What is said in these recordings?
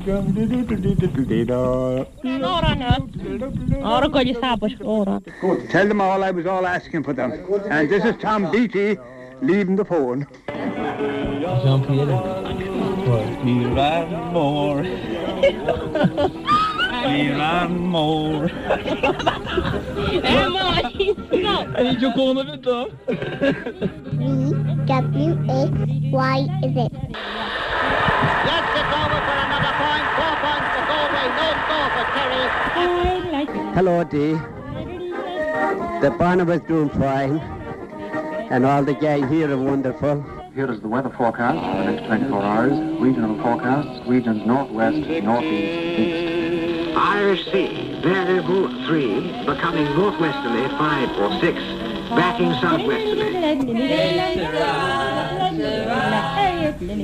Tell them all I was all asking for them. And this is Tom Beatty leaving the phone. Ní raibh mór. Ní raibh mór. V, W, X, Y, Z. Yes, it's over for another point. 4 points for Galway, no score for Kerry. Hello, Dee. The Barnabas doing fine, and all the gang here are wonderful. Here is the weather forecast for the next 24 hours. Regional forecasts, regions northwest, northeast, east. Irish Sea, variable 3, becoming northwesterly 5 or 6, backing southwesterly.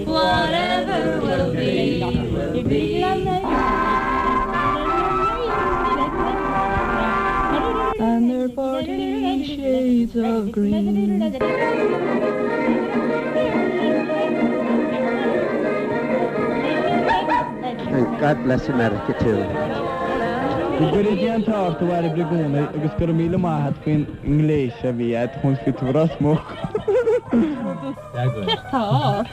Whatever will be, will be. And their parting shades of green. And God bless America too. Go gcuire Dia an t-ádh ort a Bhairbre i gcónaí agus go raibh míle maith a't faoin ngléas a bhí a't chun fiú tú Ros Muc. Céard tá ort?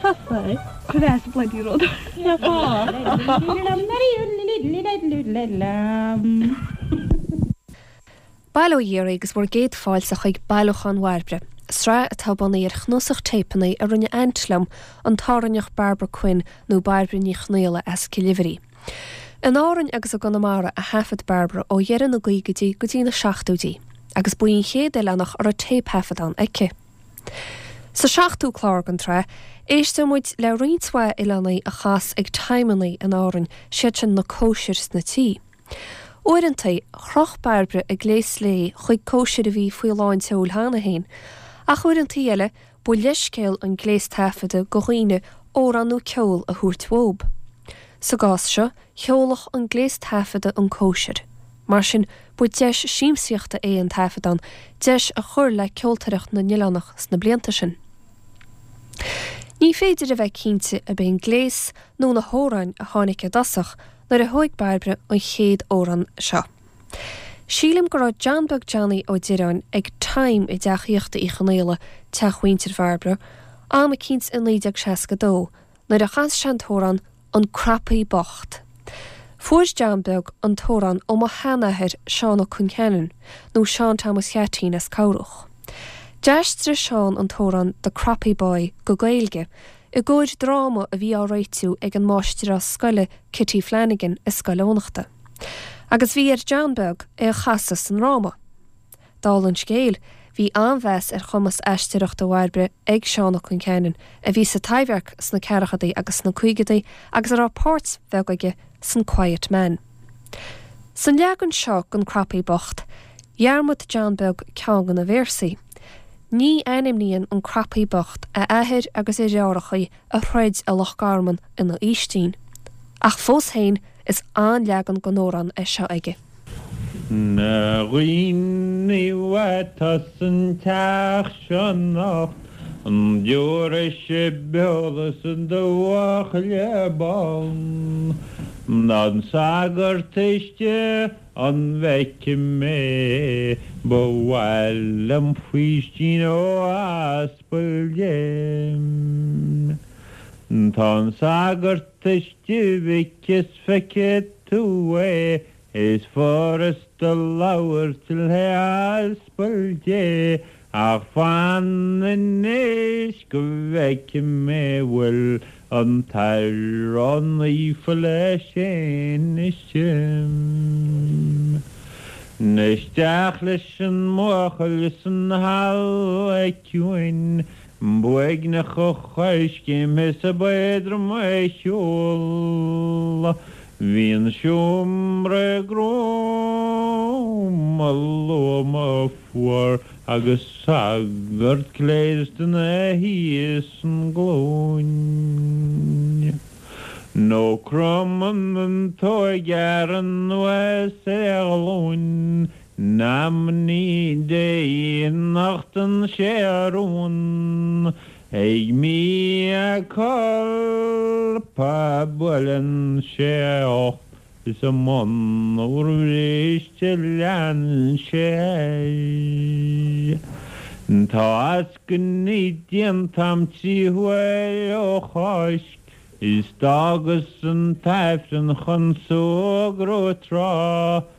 Cuir as bloody rud. Bail ó Dhia oraibh agus bhur gcéad fáilte chuig Bailiúchán Bhairbre, sraith atá bunaithe ar chnuasach téipeanna a rinne aint liom, an tÁrainneach Barbara Quinn nó Bairbre Ní Chonaola as Cill Uimhrí. In Árainn agus i gConamara a thaifead Barbara ó dheireadh na gcaogaidí go dtí na seachtóidí, agus ba í an chéad oileánach a raibh téipthaifeadán aici. Sa seachtú clár den tsraith, éisteoidh muid le roinnt mhaith oileánaigh a chas ag timeannaí in Árainn, siad sin na cóisir sna tithe. Uaireanta, chroch Bairbre a gléas léi chuig cóisir a bhí faoi lán tseoil cheana féin, ach uaireanta eile, ba leithscéal an gléas taifeadta do dhaoine amhrán nó ceol a thabhairt uathu. Sa gcás seo, sheolfadh an gléas taifeadta an cóisir. Mar sin, ba deis siamsaíochta é an taifeadán, deis a chuir le ceoltóireacht na n-oileánach sna blianta sin. Ní féidir a bheith cinnte ab é an gléas nó na hamhráin a tháinig i dtosach nuair a thóig Bairbre an chéad amhrán seo. Sílim go raibh John Beag Johnny Ó Direáin ag time i dteach aíochta Uí Chonaola, teach mhuintir Bhairbre, am eicínt i 1962, nuair a chas sé an t-amhrán An Cropaí Bocht. Fuair John Beag an t-amhrán ó mo sheanathair Seán Ó Concheanainn, nó Seán Thomas Cheaitín as Cobhrach. D'aistrigh Seán an t-amhrán The Croppy Boy go Gaeilge i gcomhair dráma a bhí á réitiú ag an máistreás scoile Kitty Flanagan i Scoil Eoghanachta. Agus bhí ar John Beag é a chasadh sa ndráma. Dála an scéil, bhí an-mheas ar chumas aisteoireachta Bhairbre ag Seán Ó Concheanainn, a bhí sa Taibhdhearc sna ceathrachaidí agus sna caogaidí agus a raibh páirt bheag aige san Quiet Man. San leagan seo den Cropaí Bocht, dhearmad John Beag ceann de na véarsaí. Ní ainmníonn an Cropaí Bocht a athair agus a dheartháireacha a throid i Loch Garman ina fhaoistín. Ach fós féin, is an-leagan den amhrán é seo aige. Na dhaoine atá san teach seo anocht, an dtabharfaidh sibh eolas do bhuachaill bán? Tá an sagart istigh An bhfeicfidh mé ba mhaith liom faoistín ó aspal Dé. Tá an sagart istigh a mhic is feicfidh tú é is furasta labhairt le haspal Dé Ach fan anois go bhfeicfidh mé bhfuil an tAthair Naofa leis fhéin istigh. Isteach leis an mbuachaill san halla ciúin b'uaigneach a choiscéim is ab éadrom a shiúl. Bhí an seomra gruama loma fuar agus sagart gléasta ina shuí san gcluain. Nó cromann an t-óigfhear anuas ar a ghlúin in amannaí Dé nochtann sé a rún. Ag mea culpa buaileann sé a ucht is a mbun bhriste leanann sé air. Tá eascainí déanta a'm 3 huaire ó Cháisc is d'fhágas an tAifreann chun súgradh tráth.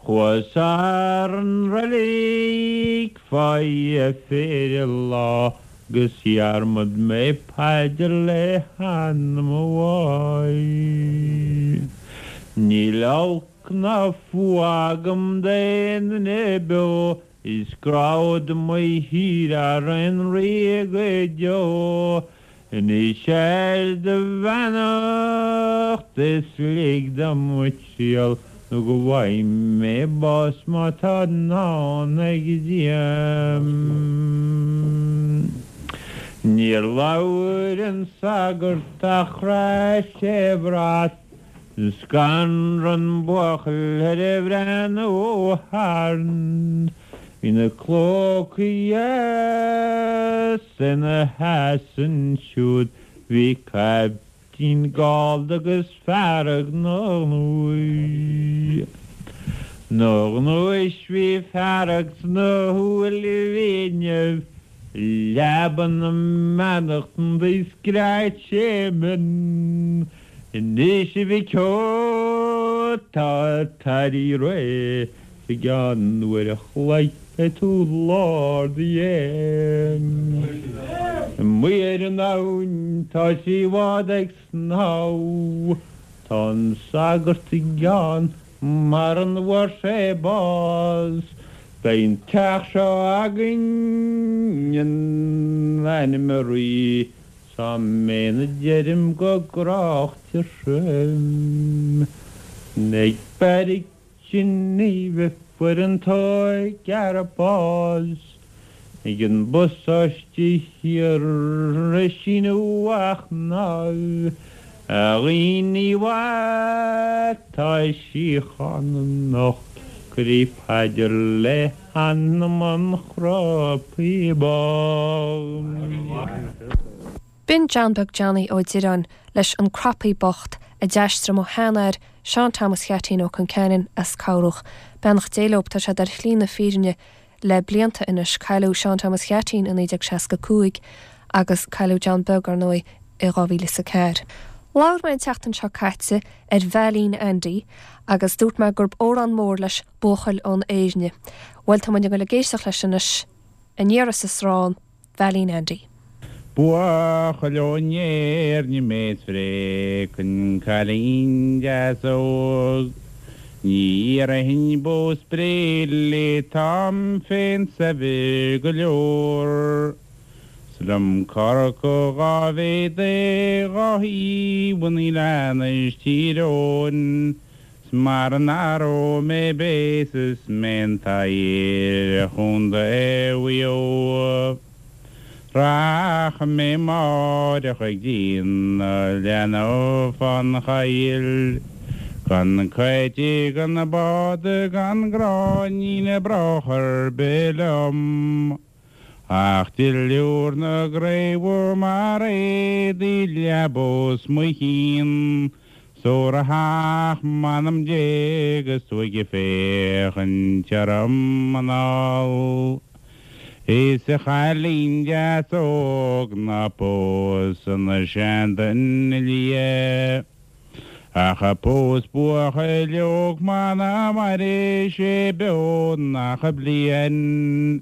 Chuas thar an reilig fá dheifir lá 'gus dhearmad mé paidir le hanam a mháthar. Níl olc ná fuath agam d'aon duine beo is gráfad mo thír thar aon rí go deo. Anois ar do bheannacht is lig dom mo thriall nó go bhfaighidh mé bás má tá ndán ag Dia. Níor labhair an sagart ach chraith sé a bhrat. Scanraigh an buachaill ar a bhreathnú thart. Bhí na clócaí dheas ina sheasamh ansiúd, bhí caiptín gallda agus fearg 'na ghnúis. 'Na ghnúis bhí fearg sna shúilibh inniu. Leaba na mbeannachtan do scread sé mion. Anois a mhic ó, tá an t-airí réidh 's i gceann uair a chloig beidh tú lár do dhéin. Amuigh ar an abhainn tá 3 bhád ag snámh, tá an sagart i gceann mara bhfuair sé bás. Beidh an teach seo againn in ainm an Rí 'S amen a deirim go gráichte trim. Ag beairic Geneva fuair an t-ógfhear bás Ag an bpasáiste thiar ag síneadh a chnámh A dhaoine mhaith tá síocháin anocht Cuiridh paidir le hanam an chropaí bocht. B'in John Beag Johnny Ó Direáin leis An Crapaí Bocht a d'aistrigh mo sheanathair, Seán Thomas Cheaitín Ó Conceanainn as Cobhrach. Beannacht Dé leob, tá siad ar shlí na fírinne le blianta anois. Cailleadh Seán Thomas Cheaitín i 1965 agus cailleadh John Beag, ar ndóigh, i 2004. Labhair mé an tseachtain seo caite ar Veailín Andy agus dúirt mé gurb amhrán mór leis Buachaill ón Éirne. Bhuel, tá muid ag dul ag éisteacht leis anois, Aniar is as Rán, Veailín Andy. Buachaill ón Éirne mé 's phréachfainn cailín deas óg. Ní iarrfainn bó 's bré léi táim féin saibhir go leor. 'S liom corcadh dhá mhéad é dhá thaobh an oileáin is Tír Eoghain. 'S mara n-aireoidh mé béas is mé an t-oidhre Chontae Mhaigh Eo. Rachaidh mé amáireach ag déanamh leanbh fán choill, gan coite gan bád gan gráinnín brocach ar bith liom. Ach duilliúr na gcraobhar mar éadaí leaba os mo chionn, 's óra theach m'anam Dé agus tú ag féachaint orm anall. Is a chailín deas óg ná pós an seanduine liath. Ach pós buachaill óg muna mairfidh sé beo nach bliain.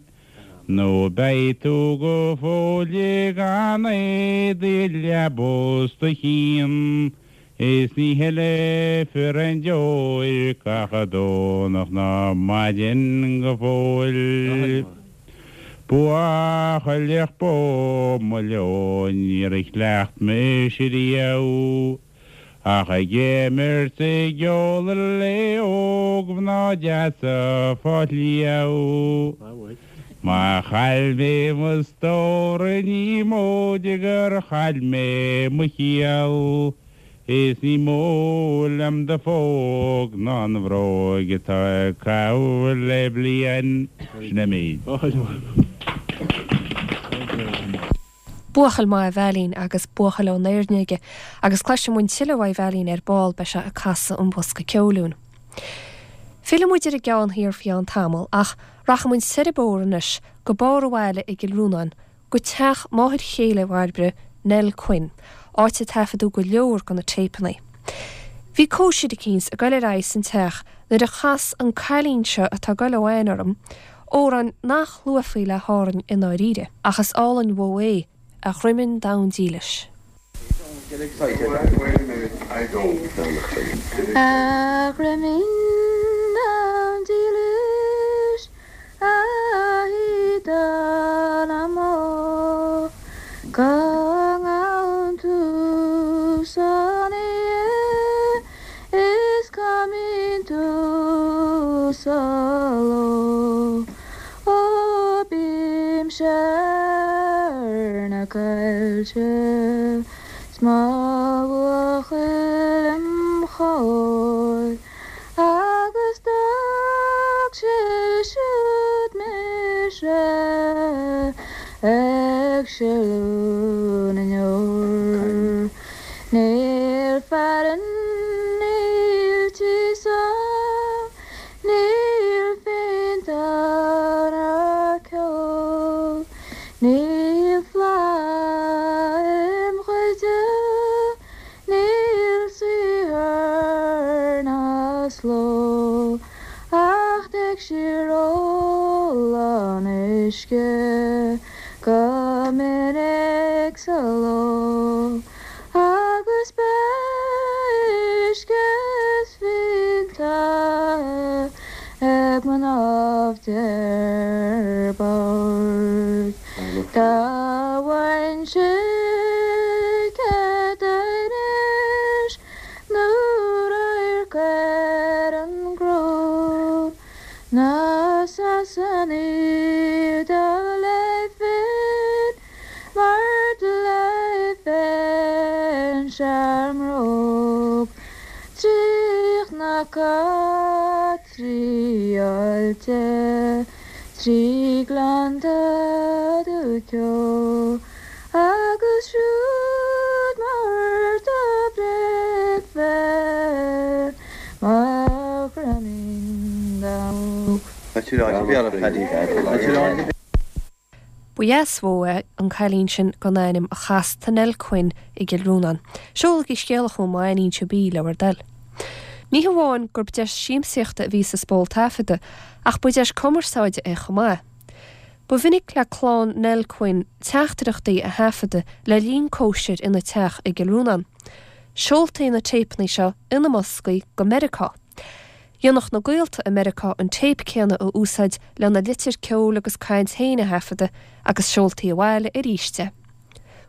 Nó beidh tú go fóill gan éadaí leaba os do chionn is ní shilfear aon deoir gach Domhnach ná maidin go fóill. Buachailleach bó mo leo níor chleacht mise riamh. Ach ag imirt 's ag ól le óg-mhná deasa fá shliabh. Má chaill mé mo stór ní móide gur chaill mé mo chiall, is ní mó liom do phóg ná an bhróig atá ag caitheamh le bliain. Sin é méid. Buachaill maith a veidhlín agus buachaill ón Éirne aige, agus cloisfidh muid tuilleadh uaidh Veidhlín ar ball, beidh sé ag casadh an bhosca ceoil dúinn. Fillfidh muid ar an gceann thiar faoi cheann tamaill, ach rachaidh muid soir an bóthar anois go barr an bhaile i gCill Rónáin, go teach máthair chéile Bhairbre, Nell Quinn, áit a taifeadadh go leor de na téipeanna. Bhí cóisir eicínt ag goil ar aghaidh san teach nuair a chas an cailín seo atá ag goil ó aithne orm, amhrán nach luafaí le hÁrainn i ndáiríre, ach is álainn uaidh é, A Dhroimin Donn Dílis. A Dhroimin Donn Dílis, a shíoda na mbó, Go ngabhann tú san oíche is cá mbíonn tú sa ló. Ó bímse ar na coillte 's mo bhuachaill im chomhair agus d'fhág sé siúd mise ag sileadh na ndeor. Níl fearann, níl tíos agam, Níl fíonta ná ceol, níl fleá im chuid, níl saothar ná sló, ach téigh siar ól an uisce go minic sa ló. Agus beidh uisce is fíonta ag mnáibh D'fhir Boird. Dá bhfaighinnse cead anois nó radharc ar an gcró na Sasanaigh do léifinn Mar do léifinn-se ár mbróg trí chnoca, trí aillte, trí ghleannta dubh ceo, agus siúd mar do bhreicfear mo dhroimín donn. Ba dheas uaidh é an cailín sin gan ainm a chas do Nell Quinn i gCill Rónáin. Seolaigí scéala chugam má aithníonn sibh í, le bhur dtoil. Ní hamháin gurb deis siamsaíochta a bhí sa spól taifeadta ach ba deis cumarsáide é chomh maith. Ba mhinic le clann Nell Quinn teachtaireachtaí a thaifeadadh le linn cóisir ina teach i gCill Rónáin. Seoltaí na téipeanna seo ina mboscaí go Meiriceá. Dhéanfadh na gaolta i Meiriceá an téip céanna a úsáid lena litir ceoil agus caint féin a thaifeadadh agus seoltaí abhaile arís é.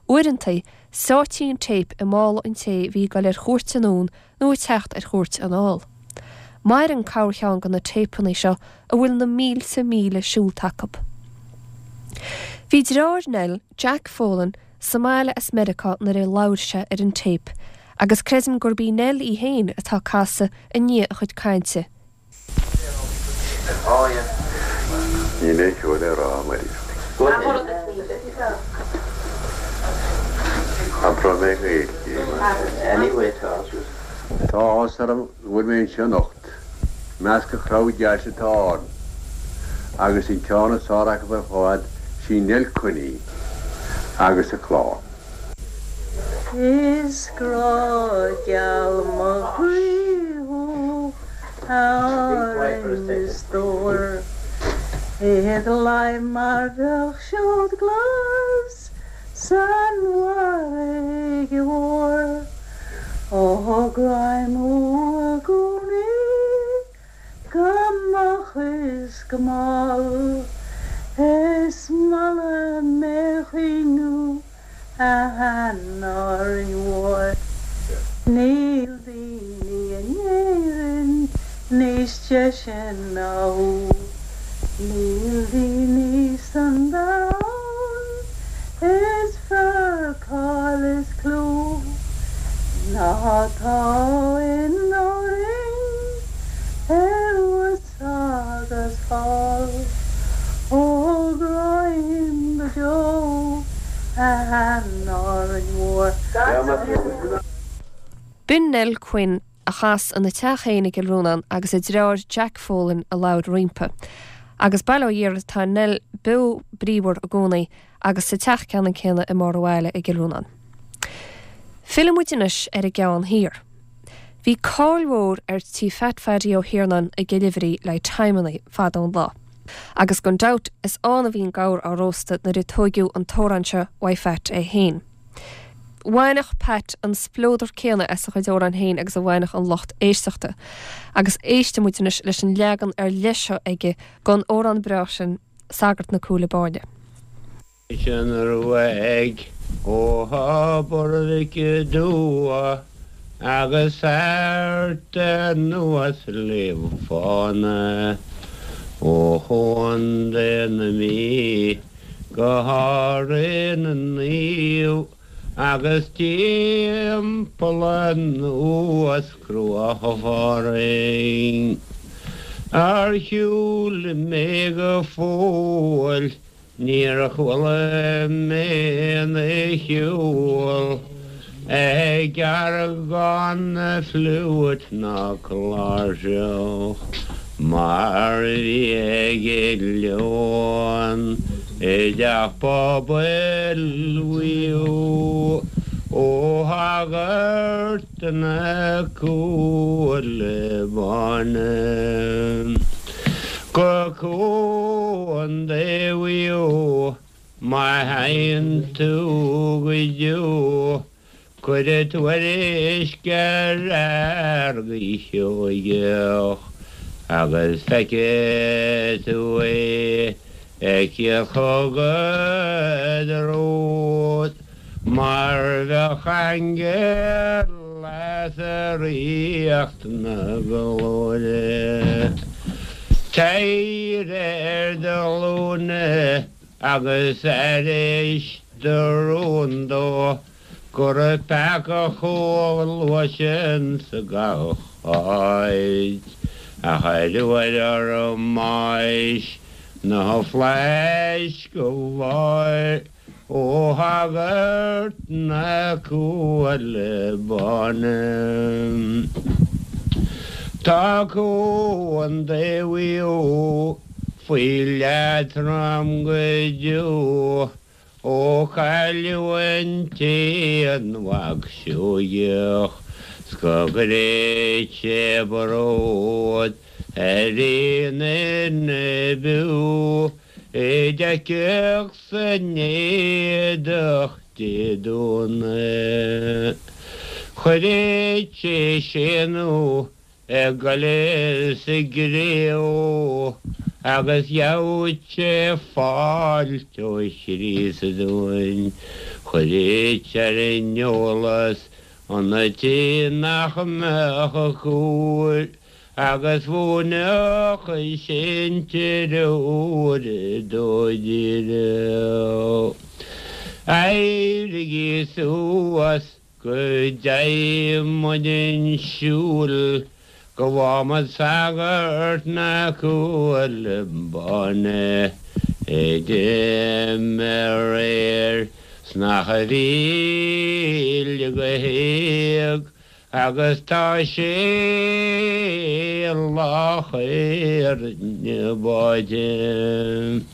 Uaireanta, sáití an téip i mála an té a bhí ag dul ar chuairt anonn nó ag teacht ar chuairt anall. Maireann corrcheann de na téipeanna seo a bhfuil na mílte míle seolta acu. Bhí deartháir Nell, Jack Folan, sa mbaile as Meiriceá nuair a labhair sé ar an téip agus creidim gurb í Nell í féin atá ag casadh i ndiaidh a chuid cainte. Níl aon cheo le rá, a Mhairéad. Abróidh mé Gaeilge, mar sin. Tá áthas orm go bhfuil mé anseo anocht. I measc an chrowd deas atá ann, agus an ceann is fearr acu ar fad, sí Nell Quinn í, agus a clann. Is grá geal mo chroí thú, a Árainn mo stór, Id leith mar bheadh seod glas san bhfarraige mhór. Ó gráim thú i gcónaí go moch is go mall, Is maith liom é chaoineadh a Árainn Mhór. Níl daoine in Éirinn níos deise ná thú, Níl daoine san domhan is fearr cáil is clú ná tá in Árainn thuas agus thall. Ó gráim go deo a. An Árainn Mhór. B'in Nell Quinn a chas ina teach féin i gCill Rónáin agus a deartháir Jack Folan a labhair roimpi. Agus bail ó Dhia uirthi tá Nell beo bríomhar i gcónaí agus sa teach ceannann céanna i mbarr an bhaile i gCill Rónáin. Fillfidh muid anois ar an gCeann Thiar. Bhí cáil mhór ar Tí Phat Phaddy Ó hIarnáin i gCill Oibhrí le timeannaí fada an lá. Agus gan dabht is ann a bhí an gabhar á róstadh nuair a tóigeadh an t-amhrán seo uaidh Phat é féin. Bhaineadh Pat an spleodar céanna as a chuid amhrán féin agus a bhaineadh an lucht éisteachta. Agus éistfidh muid anois leis an leagan ar leith seo aige den amhrán breá sin, Sagart na Cúile Báine. Sin uaidh ó Thobar Mhic Dua agus thart anuas Sliabh Fána, ó Chontae na Mí go hÁrainn na Naomh agus timpeall anuas Cruach Phádraig. Ar shiúl mé go fóill Níor chuala mé aon cheol ag aireagán na fliúit ná cláirseach mar a bhí ag Leon i dteach pobail Mhaigh Eo ó shagart na Cúile Báine. Go Contae Mhaigh Eo má théann tú go deo, cuir tuairisc ar Fheargaí Seoigeach agus feicfidh tú é ag tíocht chugat romhat mar bheadh aingeal as ríocht na glóire. Téir ar do ghlúine agus aithris do rún dó go raibh peaca chomh luath sin sa gach áit ach ar uair orm mbáis na flaithis go bhfáil Ó shagart na Cúile Báine. Tá Contae Mhaigh Eo faoi leatrom go deo ó cailleadh an t-aon mhac Seoigeach 's go gcuiridh sé bród ar aon duine beo É d'fheicfeadh san éadach Dé Domhnaigh. Chuireadh sé séanadh ag goil sa gcré ó agus gheobhadh sé fáilte ó Chríost dúinn. Chuireadh ar an eolas an té nach mbeadh a cúr Agus mhúinfeadh sin treoir dó díreach. Éirigí suas go dteigh muid 'un siúil go bhfágha muid sagart na Cúile Báine a d'imigh aréir 's nach a mhíle go héag Agus tá sé lách ar na báide.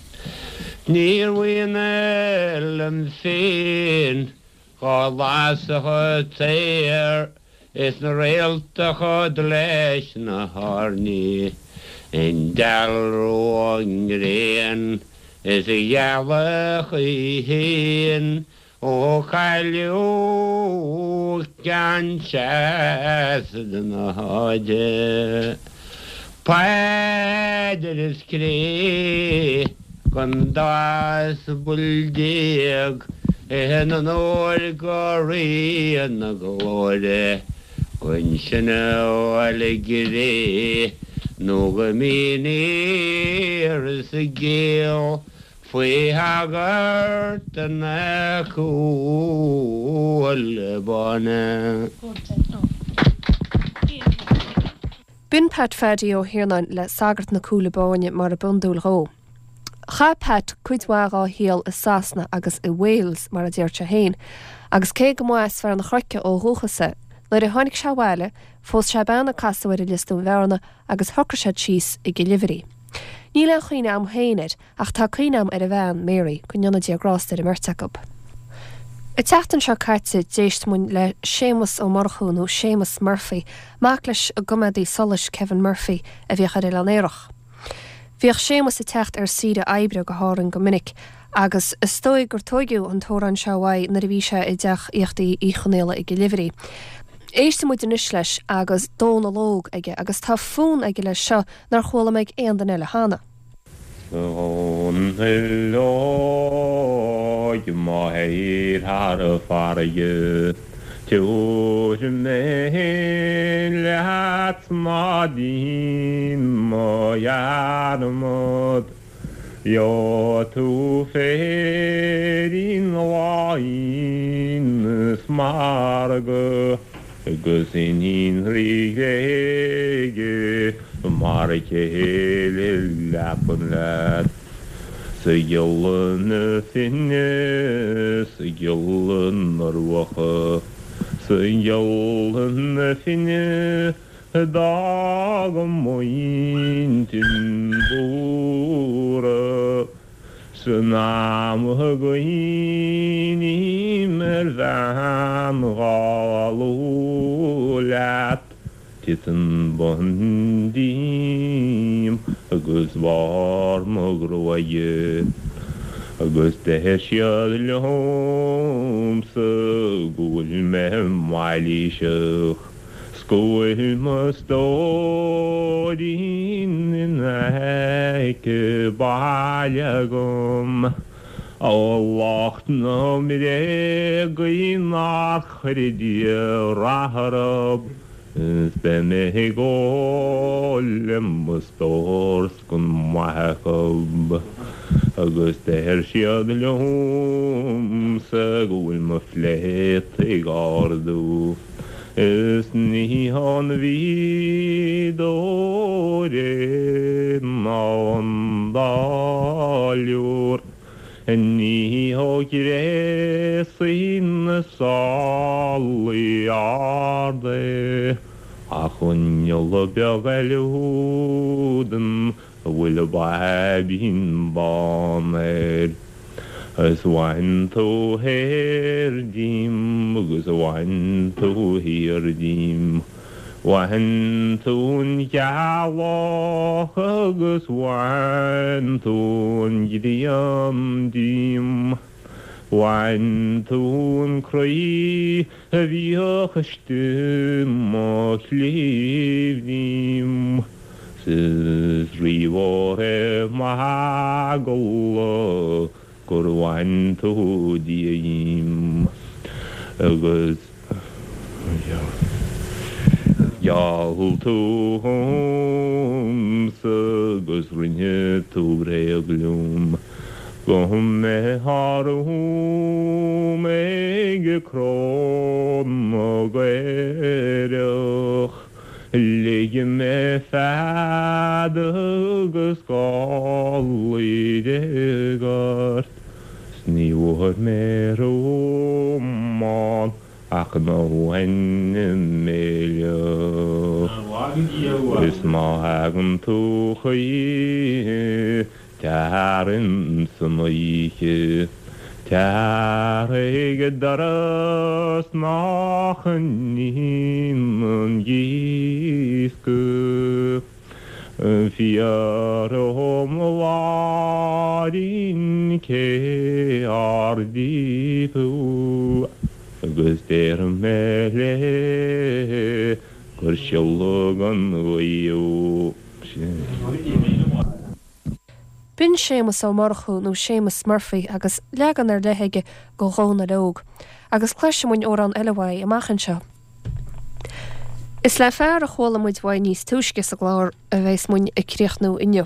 Níor mhian liom féin dhá lasadh an t-aer is na réalta chomh leis na hairní i ndealramh an ghréin is a ghealach í féin Ó cailleadh ceann seasamh na háite, Paidir is cré don dá asbal in onóir go Rí na Glóire, don sin a fháil i gcré nó go mbíonn sa gcéill Faoi shagart na Cúile Báine. B'in Pat Phaddy Ó hIarnáin le Sagart na Cúile Báine mar a b'iondúil dhó. Chaith Pat cuid mhaith dhá shaol i Sasana agus i Wales, mar a deir sé féin, agus cé go mba as Fearann an Chnoic ó dhúchas é, nuair a tháinig sé abhaile, phós sé bean a casadh air i Lios Dúin Bhearna agus shocraigh siad síos i gCill Uimhrí. Níl aon chuimhne a'm féin air, ach tá cuimhne a'm ar a bhean, Mary, go ndéana Dia grásta ar an mbeirt acu. An tseachtain seo caite d'éist muinn le Séamus Ó Murchú, nó Séamus Murphy, mac leis an gcoimeádaí solais Kevin Murphy a bhíodh ar Oileán Aerach. Bhíodh Séamus ag teacht ar saoire oibre go hÁrainn go minic agus is dóigh gur tóigeadh an t-amhrán seo uaidh nuair a bhí sé i dteach aíochta Uí Chonaola i gCill Uimhrí. Éistfidh muid anois leis agus Dónal Óg aige agus tá fonn aige leis seo nár chuala mé ag aon duine eile cheana. A Dhónaill Óig má théir thar an bhfarraige Tabhair mé féin leat ná dein mo dhearmad Gheobhaidh tú féirín láin is margadh Agus iníon Rí Ghréige mar chéile leapan leat. 'S a ghiolla na finne, 's a ghiolla na ruacha, 's a ghiolla na finne a d'fhág m'intinn buartha. San am a gcuimhním ar bhean dhá lua leat, titeann bonn díom agus barr mo ghruaige, agus deir siad liomsa go bhfuil mé mailíseach. 'S go bhfuil mo stóirín in aice baile agam. Ó lucht na mbréagaí nár chuir Dia rath orthu, is beidh mé ag ól le mo stór 's gan maith acu. Agus deir siad liomsa go bhfuil mo phléata ag ardú. Is ní hón mhí dóire ná ón dtáilliúr, ní ó ghréasaí na sálaí arda é, ach ón ngiolla beag eile údan a bhfuil baibín bán air. Is bhain tú thoir díom agus bhain tú thiar díom, bhain tú an ghealach agus bhain tú an ghrian díom, bhain tú an croí a bhíodh istigh i mo chliabh díom. 'S is rímhór é m'eagla gur bhain tú Dia dhíom agus gheall tú dhomsa agus rinne tú bréag liom go mbeifeá romham ag cró na gcaorach. Lig mé fead agus gálaí déag ort, 's ní bhfuair mé romham ach an méileach. Is má thagann tú choíche Tar insan oíche, tar ag doras nach n-íonann díosca. Fiafraigh dhom a Mháirín cé ár dtí thú agus déarfaidh mé léi gur siolladh an ghaoth thú. B'in Séamus Ó Murchú nó Séamus Murphy agus leagan ar leith aige go Dhónal Óg. Agus cloisfidh muinn amhrán eile uaidh amach anseo. Is le fear a chuala muid uaidh níos túisce sa gclár a bheas muinn ag críochnú inniu.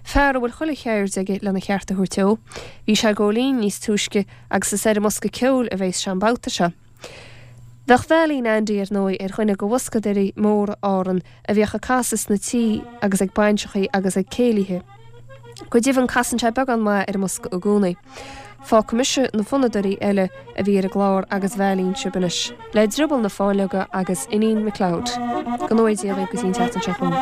Fear a bhfuil chuile cheird aige lena cheart a thabhairt dó. Bhí sé ag gabháil fhoinn níos túisce agus is ar an mbosca ceoil a bheas sé an babhta seo. Bheadh Veailín Andy, ar ndóigh, ar dhuine de bhoscadóirí móra Árann a bhíodh ag casadh sna tithe agus ag bainseachaí agus ag céilithe. Go deimhin casann sé beagán maith ar an mbosca i gcónaí. Fágfaidh mise na fonnadóirí eile a bhí ar an gclár agus bhailíonn sibh anois le Drioball na Fáinleoga agus Iníon McLeod. Go ngnóthaí Dia dhaoibh go dtí an tseachtain seo chugainn.